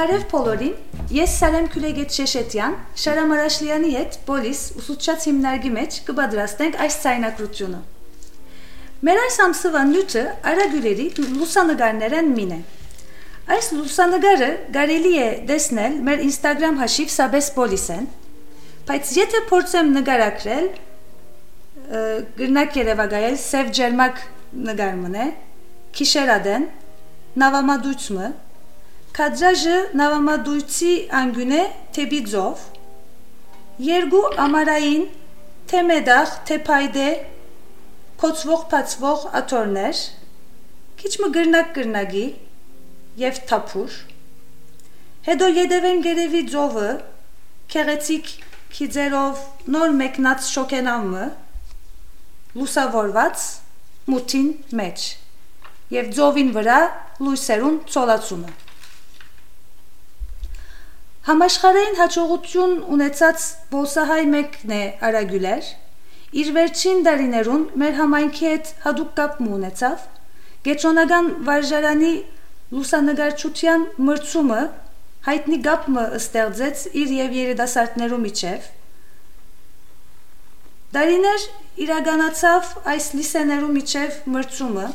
Բարև բոլորին, ես Սարեմ Քյուրեգետ Շեշետյան, Շարամ Արաշլյանի հետ պոլիս ուսուցչած հիմնարկի մեջ կպատրաստենք այս ցայնակրությունը։ Մեր այս ամսվա նյութը արագույրերի լուսանկարներն մին է։ Այս լուսանկարը կարելի է տեսնել մեր Instagram հաշիվ Sabes Polis-ն, բայց եթե փորձեմ նկարագրել, գրնակ երևակայել սև ջերմակ նկարմն է, քիշերադեն, նավամադույցը, քադրաժը նավամադույցի անգյուն է թեպի ձով, երկու ամարային, թե մեդախ, թե փայդե, փոցվող աթորներ, քիչ մը գրնակ-գրնագի և թափուր, հետո ետևեն գերևի ձովը, քեղեցիկ քիձերով նոր մեկնած շոքենամը, լուսավորված մութին մեջ և ձովին վրա լույսերուն ծոլացումը։ Համաշխարհային հաջողություն ունեցած բոսահայ մեկն է արագյուլեր, իր վերջին դարիներուն մեր համայնքի հետ հատուկ կապ ունեցավ, գետրոնական վարժարանի լուսանկարչության մրցումը հայտնի կապը ստեղծեց իր և երիտասարդներու միջև, դարիներ իրականացավ այս լիսեներու միջև մրցումը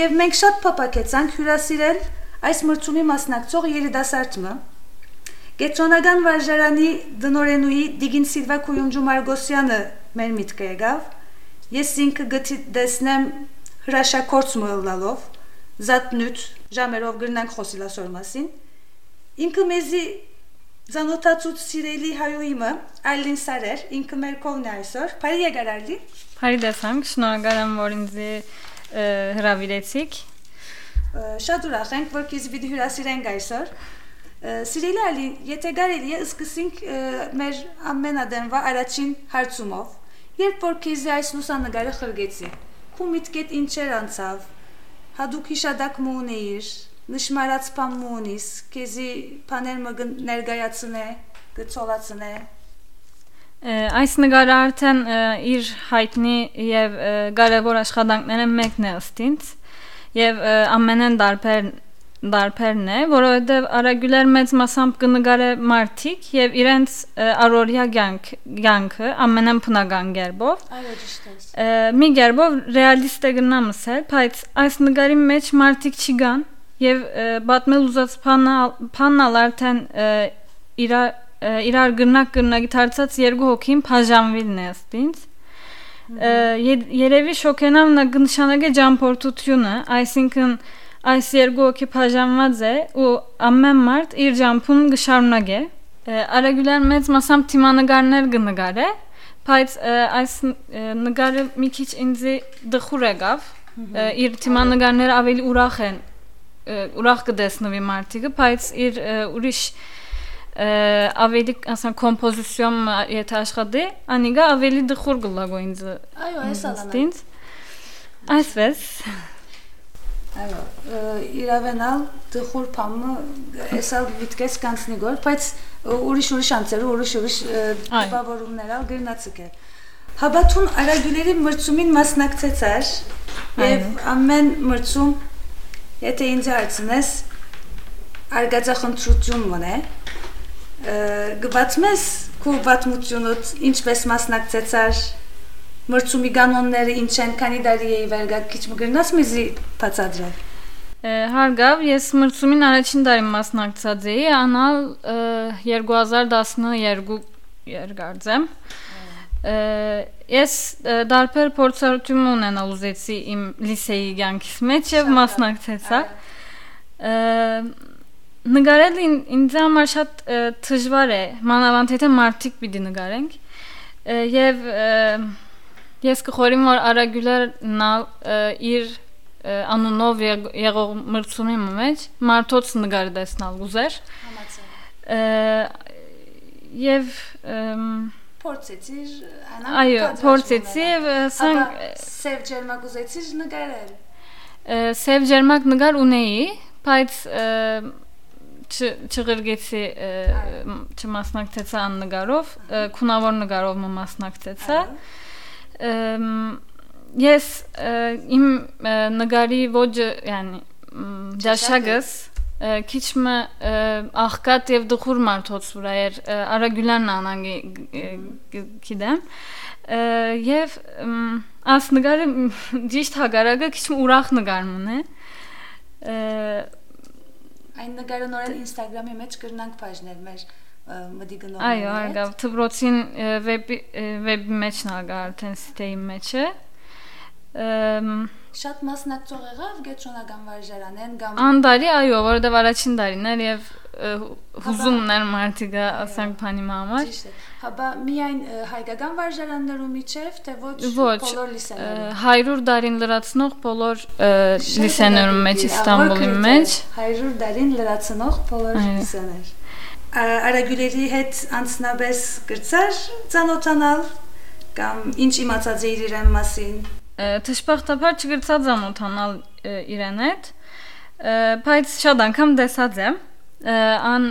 և մենք շատ փափագեցանք հյուրասիրել այս մրցումի մասնակցող երիտասարդը, գետրոնական վարժարանի դնորենուի Դիգին Սիլվա Քույունջու Մարգոսյանը մեր միտքը եկավ, ես ինքը գտեսնեմ հրաշագործ մոլալով, զատնույթ ժամերով գրնանք խոսիլ ասոր մասին, ինքը մեզի ծանոթացուց սիրելի հայուիմը Այլին Սարեր, ինքը մեր կողն է այսօր, բարի եկար Այլի։ Բարի տեսանք, շնորհակալ եմ, որ ինձ հրավիրեցիք։ Շատ ուրախ ենք, որ քեզ պիտի հյուրասիրենք այսօր։ Սիրելի Այլի, եթե կարելի է սկսենք մեր ամենադեմվա առաջին հարցումով, երբ որ քեզ այս լուսանկարը խրգեցի, քու միտքեդ ինչեր անցավ, հադուկ հիշադակ մունեիր, նշմարած պամ մունիս, քեզի պաներ մը ներգայացնե, գծոլացնե։ Այս նկարը արդեն իր հայտնի և կարևոր աշխատանքները մեկն է ըստ ինձ և ամենեն դարբերն է, որովհետև արագյուլեր մեծ մասամբ կնկարե մարդիկ և իրենց առօրյա կյանքը ամենեն բնական կերպով։ Մի կերպով ռեալիստ է գնամ ասել, բայց այս նկարի մեջ մարդիկ չկան և պատմել ուզած բանալ արդեն իրար գրնակ-գրնագի դարձած երկու հոգին բաժանվելն է ըստ ինձ։ Երևի շոքենամ նշանակե ճամփորդությունը, այսինքն այս երկու հոգի բաժանված է ու ամեն մարդ իր ճամփուն կշարունակե։ Արագյուլեր մեծ մասամբ թիմանկարներ կնկարե, բայց այս նկարը մի քիչ ինձ դխուր եկավ, իր թիմանկարները ավելի ուրախ են, ուրախ կտեսնվի մարդիկը, բայց իր ուրիշ ավելի ասեմ կոմպոզիցիոն եթե աշխատի, անիգա ավելի դխուր գլագո ինձ։ Այո, այս այսպես։ Այո, իրավենալ դխուր պամը էսալ վիտկես կանցնի գոր, բայց ուրիշ անցերու, ուրիշ տպավորումներալ գրնացիկ է։ Հաբաթուն արագյուլերի մրցումին մասնակցեցար և ամեն մրցում, եթե ինձ հարցնես, արգածախնդրություն մն է, գվացմես քու վատմությունոտ ինչպես մասնակցեցար, մրցումի կանոնները ինչ են, քանի դարի էի վերգակ, քիչ մգրնաս մեզի բացադրել։ Հարգավ, ես մրցումին առաջին դարի մասնակցած էի, անալ 2012 երկարձեմ։ Ես դարբեր փորձառություն ունենալ ուզեցի իմ լիսեի կյանքիս մեջ և մասնակցեցա։ Նկարել ինձ համար շատ դժվար է, մանավանդ եթե մարդիկ պիտի նկարենք և ես կխորիմ, որ արագյուլերն իր անունով եղող մրցումի մեջ մարդոց նկարը տեսնալ ուզեր և փորձեցիր, այո, փորձեցի և սև ջերմակ ուզեցիր նկարել։ Սև ջերմակ նկար ունեի, բայց չղրգեցի չմասնակցեցա աննկարով, քունավոր նկարով մասնակցեցա։ Ես իմ նկարի ոճը, yani ճաշակս քիչ մը աղքատ եւ դխուր մարդոց վրա էր Արագյուլյանն անանգի գիտեմ եւ աս նկարը ճիշտ հագարակը քիչ ուրախ նկարն է այն նկարը նորեն Instagram-ի մեջ կրնանք բաժնել մեր մդի գնողները այո արգավ թբրոցին վեբի մեջ նագա արդեն սիտեի մեջ է շատ մասնակցող եղավ Գետրոնական վարժարանեն կամ Անդարի այո որովհետև առաջին տարին էր եւ հուզումներ մարդիկը ասենք բանի համար հաբա միայն հայկական վարժարաններու միջև թե ոչ բոլոր լիսեներում 100 տարին լրացնող բոլոր լիսեներում մեջ Իստանբուլի մեջ 100 տարին լրացնող բոլոր լիսեներ Արագյուլերի հետ անցնաբես գրծար ծանոթանալ կամ ինչ իմացած էիր իրեն մասին Թշպախտաբար չգրծած ծանոթանալ իրեն հետ բայց շատ անգամ տեսած եմ ան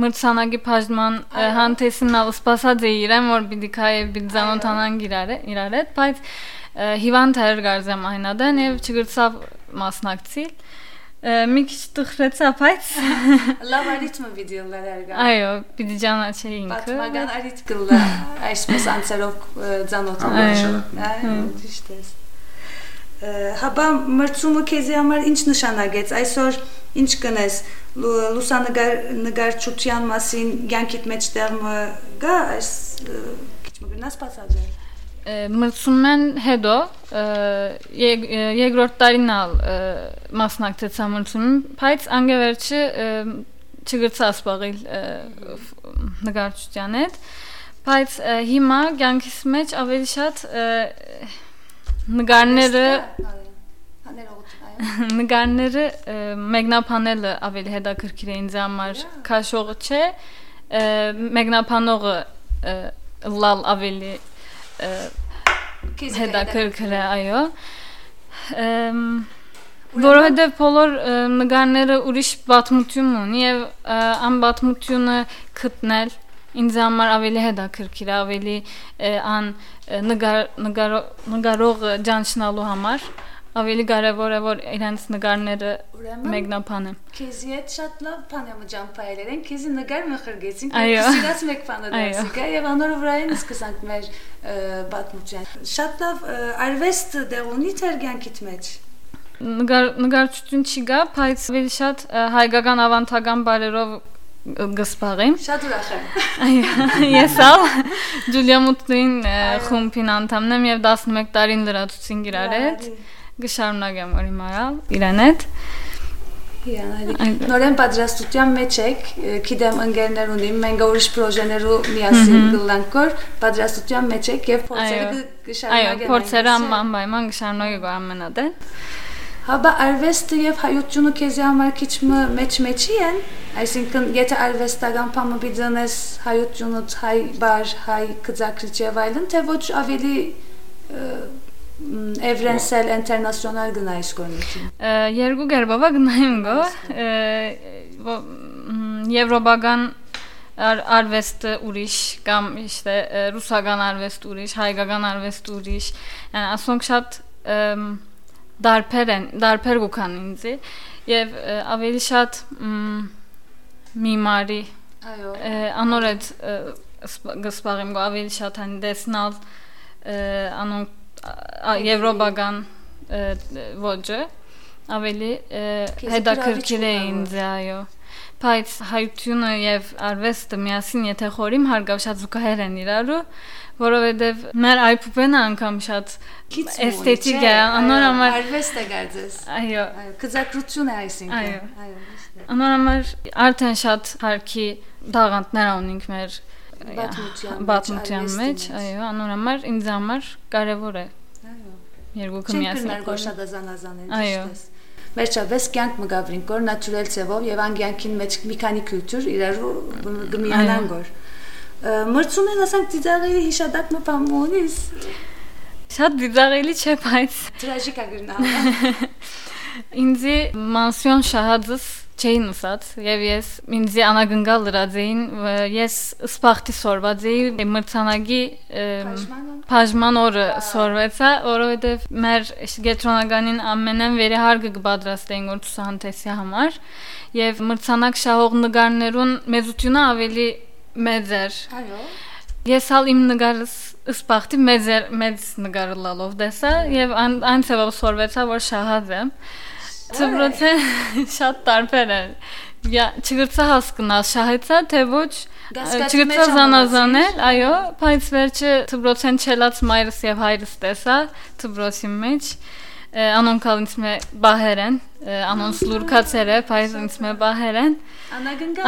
մրցանակի բաժնման հանդեսինալ սպասած է իրեն որ պիտի քայ պիտի ծանոթանան իրար հետ բայց հիվանդ էր գարզեմ այնադեն եւ չգրծավ մասնակցիլ մի քիչ տխրեցա բայց լավ արիթմը վիդեոներ արգա այո պիտի ճանաչեի ինքը պատմական արիթ կլա այսպես անցերով ծանոթանալ ճիշտ է հաբա մրցումը քեզի համար ինչ նշանակեց այսօր ինչ կնես լուսանկարչության մասին յանքիդ մեջ տեղը գա այս քիչ մգնաս բացաձել մրցումեն հետո երկրորդ տարին մասնակցեցա մրցումին, բայց անգևերջը չգրծա սպաղիլ նկարչության հետ, բայց հիմա կյանքիս մեջ ավելի շատ նկարները մեկնաբանելը ավելի հետաքրքիր է ինձ համար, քաշողը չէ, մեկնաբանողը լալ ավելի հետաքրքիր է այո որովհետև բոլոր նկարները ուրիշ պատմություն ունի եւ ան պատմությունը գտնել ինձ համար ավելի հետաքրքիր է ավելի ան նկարող ճանչնալու համար ավելի կարևոր է որ իրենց նկարները մեկնաբանեն քեզի հետ շատ լավ բան եմ ջամփայել են քեզի նկար մխրգեցին քեզի մեկ բանը դասիկա եւ անորը վրային սկսանք մեր պատմության շատ լավ արվեստ դեղ ունի թերգյանքիդ մեջ նկարչություն չի գա բայց ավելի շատ հայկական ավանդական բարերով գսպաղեմ շատ ուրախ եմ այո ես ալ Ջուլիա Մուտլին խումբին անդամն եմ եւ 11 տարին լրացուցին իրար հետ Գշարունակեմ որ իմարալ իրեն հետ նորեն պատրաստության մեջ եք գիտեմ ընկերներ ունիմ մենք ուրիշ պրոժեներու միասին գլանքոր պատրաստության մեջ եք եւ փորձերը գշարունակեն այո փորձերը անպայման գշարունակեք ամենադեն հաբա արվեստը եւ հայությունը քեզի համար քիչ մեջի են այսինքն եթե արվեստական բանը բիզնես հայությունը հայ բար հայ գծակրիչ եւ այլն թե ոչ ավելի Evrensel, internasyonel gınayış konuşuyor. Երկու կերպով գնայում գո եվրոպական արվեստը ուրիշ կամ իշտե ռուսական արվեստ ուրիշ, հայկական արվեստ ուրիշ, yəni ասոնք շատ դարբեր գուքան ինձի եւ ավելի շատ միմարի անորդ գսպաղեմ գո ավելի շատ հան դեսնալ անոնք եվրոպական ոճը ավելի հետաքրքիր է ինձ այո բայց հայությունը եւ արվեստը միասին եթե խորիմ հարգավ շատ զուգահեռ են իրարու որովհետեւ մեր այփուպենը անգամ շատ էսթետիկ է անոր համար արվեստը գարձես այո գծակրություն է այսինքն այո անոր համար արդեն շատ հարկի դաղանտներ ունենք մեր Բաթմության մեջ, այո, անոր համար ինձ համար կարևոր է։ Այո։ Երկուքը միասին գործադազանազան են, ճիշտ է։ Վերջապես կյանք մը գավրին կոր նատուրել ցևով եւ անգյանքին մեջ մի քանի քուլտուր իրարու գմիանան գոր։ Մրցում են ասենք ծիծաղելի հիշադակ մը բամոնիս։ Շատ ծիծաղելի չէ, բայց տրաժիկ ագրնա։ Ինձի մանսիոն շահածս չէին ուսած եւ ես ինձ անագնգալ լրացեին ես սպախտի սորված էի մրցանակի բաժման օրը սորվեցա որովհետեւ մեր գետրոնականին ամենեն վերահարգը կպատրաստեին որ ցուցահանդեսի համար եւ մրցանակ շահող նկարներուն մեծությունը ավելի մեծ էր այո ես ալ իմ նկարս սպախտի մեծ նկարը լալով դեսա եւ այն ծավալ սորվեցա որ շահած եմ Ծբրոցը շատ տարբեր է։ Չգրծա հասկնալ շահեցա, թե ոչ չգրծա զանազանել, այո, բայց վերջը ծբրոցեն չելած մայրս եւ հայրս տեսա ծբրոցի մեջ։ Անոնքալ ինձ մե բահերեն, անոնց լուրքացեր է, բայց ինձ մե բահերեն։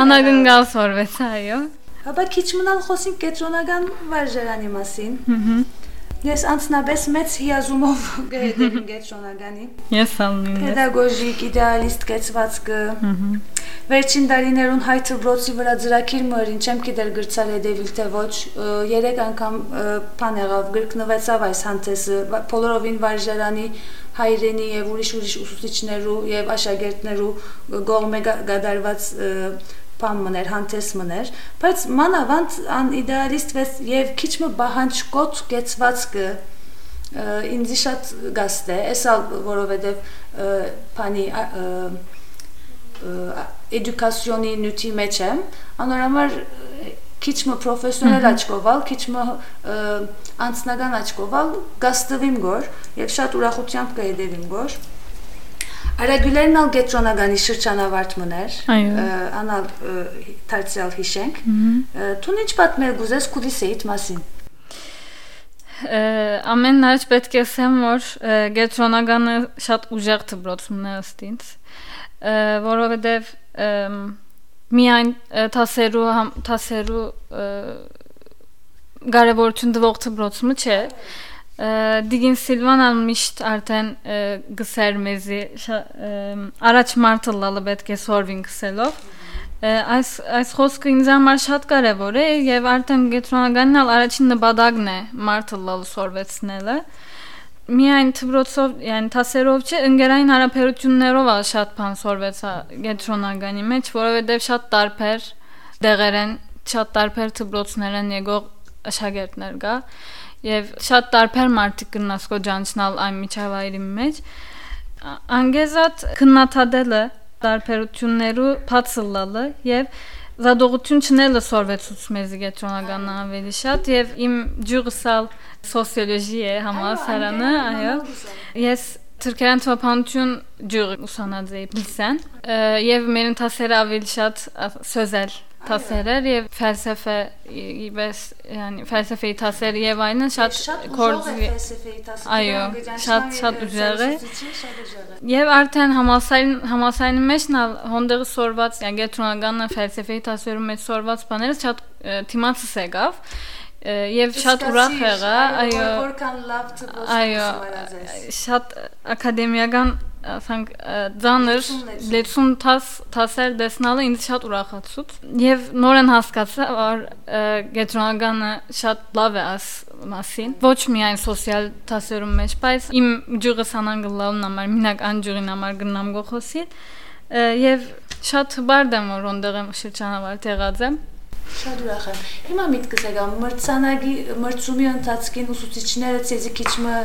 Անագնգալ սորվեցա, այո։ Հապա քիչ մնալ խոսենք կենտրոնական վարժարանի մասին։ Ես անցնաբես մեծ հիազումով գերդերին կենտրոնականի։ Ես ալնին ես։ Պետագոգիկ, իդեալիստ կեցվածքը։ Վերջին տարիներուն հայ ծբրոցի վրա ծրագիր մորին չեմ գիտեր գրծալ հետևիլ թե ոչ 3 անգամ բան եղավ գրկնվեցավ այս հանդեսը բոլորովին վարժարանի հայրենի եւ ուրիշ ուսուցիչներու եւ աշակերտներու գողմե գդարված բան մներ, հանդես մներ, բայց մանավանդ ան իդեալիստ եւ քիչ մը բահանջկոտ կեցվածքը ինձ շատ գաստ է, էսալ որովհետեւ բանի էդուկացիոնի նյութի մեջ եմ, անորոշ քիչ մը պրոֆեսիոնալ աչքովալ, քիչ մը անձնական աչքովալ գաստվիմ գոր եւ շատ ուրախությամբ կհետևիմ գոր Արագուլերն ալ գետրոնականի շրջանավարտ մներ, անալ թարցիալ հիշենք, թուն ինչ պատմել գուզես կուլիսեիտ մասին։ Ամեն նարջ պետք է ասեմ, որ գետրոնականը շատ ուժեղ դպրոցում է ըստ ինձ, որովհետև միայն թասերու կարևորություն տվող դպրոցումը չէ, Դիգին Սիլվանան միշտ արդեն գսեր մեզի առաջ մարդը լալը պետք է սորվին գսելով այս խոսքը ինձ համար շատ կարևոր է եւ արդեն գետրոնականն ալ առաջին նպատակն է մարդը լալը սորվեցնելը միայն դպրոցով, yəni թասերով չէ, ընկերային հարաբերություններով ալ շատ բան սորվեցա գետրոնականի մեջ, որովհետեւ շատ տարբեր դեղեր են, շատ տարբեր դպրոցներ են եկող աշակերտներ կա Եվ շատ տարբեր մարդիկ կնասկո ջանչնալ այն միջավայրի մեջ անգեզատ քննադատելը տարբերություններու բացլալը եւ զադողություն չնելը սորվեցուց մեզի գետրոնական ավելի շատ եւ իմ ջուրսալ սոցիոլոգի է համալսարանը այո ես Թուրքիան թվականություն ջուր ուսանած էի լիսեն եւ մեր ընթացերը ավելի շատ սոզել Թասերեր եւ ֆելսեֆե իբես yani ֆելսեֆեի թասեր եւ այնն շատ կորձի այո շատ ուժեղ է եւ արդեն համալսարանի մեջ հոնդերը սորված yani գետրոնականը ֆելսեֆեի թասերում մեջ սորված բաները շատ թիմացս եկավ եւ շատ ուրախ եղա այո որքան լավ դպրոց շատ ակադեմիական ասենք ձանր լեցուն թասեր դեսնալը ինձ շատ ուրախացուց եւ նորեն հասկացա որ գետրոնականը շատ լավ է աս մասին ոչ միայն սոցիալ թասերում մեջ բայց իմ ջուրը սանանգլալն համար մինակ անջուրին համար գնամ գոխոսի եւ շատ բարդ եմ որ ոնդեղ եմ շրջանավարտ եղած եմ Շատ ուրախ եմ։ Հիմա միտքս եկա մրցումի ընթացքին ուսուցիչները ցեզի քիչ մը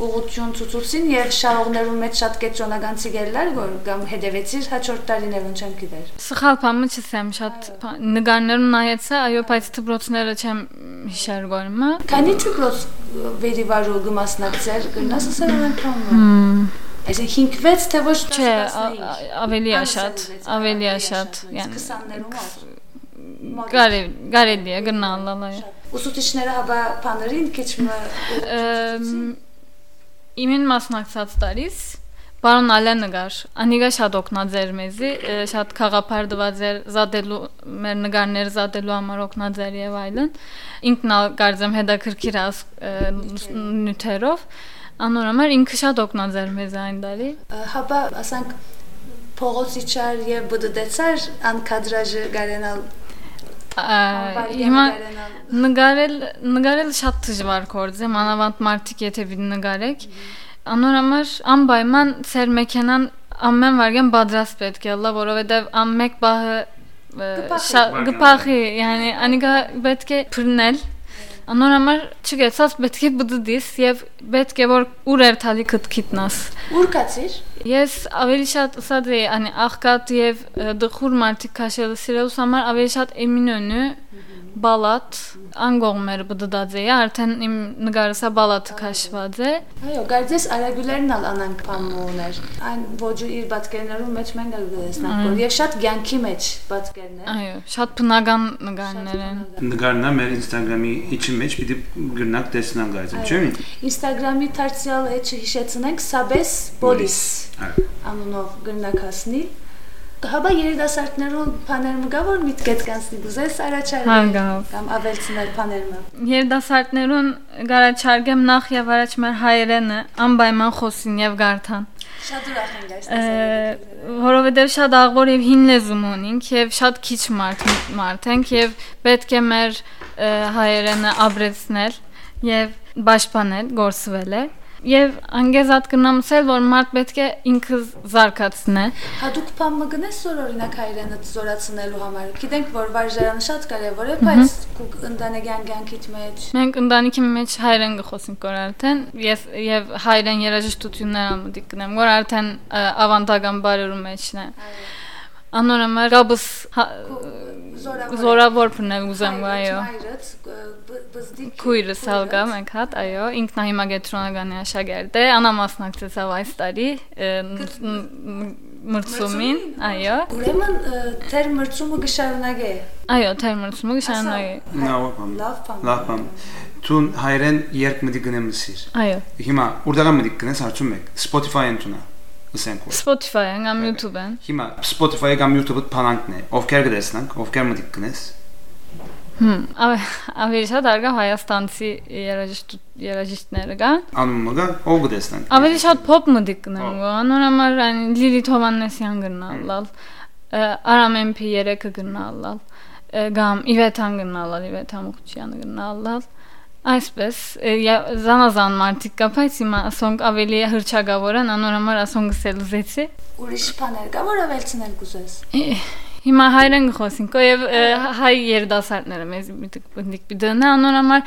ուղղություն ցուցուցին եւ շահողներու մեջ շատ կենտրոնական ցիգերներ որ կամ հետևեցիր հաջորդ տարիներուն չեմ գիտեր։ Սխալ բանը չեմ շատ նկարներուն նայեցա, այո, բայց դպրոցները չեմ հիշեր գորմա։ Քանի դպրոց վերիվարու գմասնակցեր գնաս ասել են կամը։ Այսինքն 5-6 թե ոչ չէ, ավելի է շատ, yəni 20-ներում Կարելի է գնալալա Ուսուցիչները հաբա բաներին քիչ մը Իմին մասնակցած տարիս Բարոն Ալենը գար Անիգա շատ օգնած էր մեզի շատ խաղապարդված էր զադելու մեր նկարները զադելու համար օգնած էր եւ այլն ինքն կարծեմ հետաքրքիր նյութերով անորոշ ինքը շատ օգնած էր մեզ այն տարի Հաբա ասենք փողոցիչար եւ բդդեցար ան կադրաժը գարենալ Հիմա նկարել շատ դժվար գործ է, մանավանդ մարդիկ եթե նկարեք Անորամար անպայման ծեր մեքենան ամեն վարյան պատրաստ պետք է լա, որովհետև ամեկ բահը գպախի, yani անիգա պետք է փռնել Անորամար չգեցած պետք է բդդիս եւ պետք է որ ուր երթալի կտքիտնաս Ուր կացիր Ես ավելի շատ ասած էի, անի աղքատ եւ դխուր մարդիկ քաշելը սիրելուս համար ավելի շատ Էմինոնը բալատ անգողմեր բդդած էի, արդեն իմ նկարսա բալատը քաշված է Այո, գարձես արագուլերն ալ անանք պամուներ Այն ոջու իր բացկերներում մեջ մենք գլեսնանք որ եւ շատ ցանկի մեջ բացկերներ Այո, շատ բնական նկարներ են Նկարնա մեր Instagram-ի իջի մեջ պիտի գրնակ տեսնան գայցը, չէ՞։ Instagram-ի դարձյալ էջը հիշեցնենք Sabes Bolis անունով գրնակացնի Հաբա երիտասարդներու բաներում գա որ միտքետ կանցնի գուզես առաջարկել կամ ավելցնել բաներումը Երիտասարդներուն գարաչարգեմ նախ եւ առաջ մեր հայերենը անպայման խոսին եւ գարթան Շատ ուրախ ենք այս Որովհետեւ շատ աղբոր եւ հին լեզու ունենք եւ շատ քիչ մարդ ենք եւ պետք է մեր հայերենը ապրեցնել եւ պաշտպանել, գործվել է Եվ անգեզատ կնամսել, որ մարդ պետք է ինքը զարգացնե Հատուկ բան մգնես որ օրինակ հայրենը զորացնելու համար Գիտենք, որ վարժարանը շատ կարևոր է, բայց ընտանեկան կյանքիդ մեջ Մենք ընտանիքի մեջ հայրեն կխոսենք որ արդեն Եվ հայրեն երաժշտություններ ամուտիկ կնեմ, որ արդեն ավանդական բարերու մեջն է Անորամար գաբս զորավոր պնել ուզեմ, այո Քույրս հալգա մենք հատ, այո, ինքնահիմագետրոնագանի աշակերտ է, անամասնակցեցավ այս տարի մրցումին, այո Ուրեմն թեր մրցումը կշարունակե Այո, թեր մրցումը կշարունակե Լավ բան Տուն հայրեն երկ մտի գնեմ լսիր Այո Հիմա ուրդական մտի գնես հարցում եք Spotify-ն տունա Spotify-ն կամ YouTube-ն Հիմա Spotify-ը կամ YouTube-ը փանանքն է Ովքեր գտեսնանք, ովքեր մտի գնես Ավելի շատ արգա հայաստանցի երաժիշտները կան Անումը գա, ով գտեսնանք Ավելի շատ փոփ մտի գնեմ Անորամար Լիլիթ Հովհաննեսյան գնալալ Արամ MP3-ը գնալալ Գամ Իվեթան գնալալ Իվեթա Մուխչյանը գնալալ Այսպես զանազան մարդիկ կա, բայց հիմա ասոնք ավելի հրճագավոր են, անորամար ասոնք սելուզեցի Ուրիշ բաներ կա, որ ավելցնել կուզես Հիմա հայրեն գխոսինք, եւ հայ երդասարտները մեզ միտիկ պիտենա, անորամար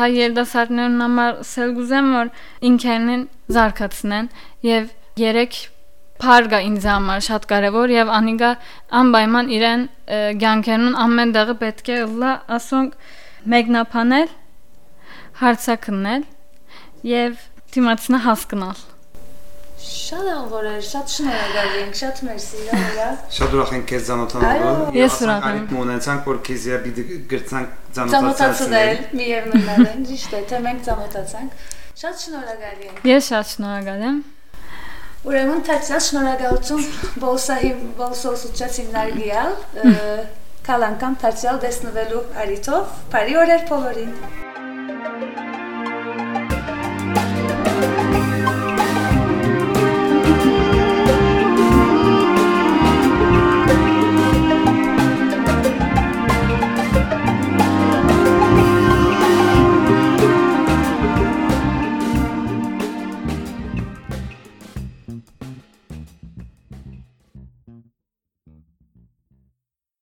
հայ երդասարտներն համար սելգուզեմ, որ ինքերնին զարգացնեն եւ երեք Փարգա ինձ համար շատ կարևոր եւ անիգա անպայման իրեն ցանկերուն ամեն դեղը պետք է լա ասոնք մեկնաբանել հարցակնել եւ դիմացնա հասկանալ Շատ անգորեր, շատ շնորհակալ ենք, շատ մերսի, այո Շատ ուրախ ենք քեզ ծանոթանալու Ես ուրախ եմ Մոնեցանք որ քեզ պիտի գրցանք ծանոթացնել միևնույնն է, ճիշտ է, թե մենք ծանոթացանք Շատ շնորհակալ ենք Ես շատ շնորհակալ եմ Ուրեմն թացյալ շնորհակալություն բոլսոսուչած հիմնարկյալ Կալ անգամ թացյալ դեսնվելու արիթով, բարի օրեր բոլորին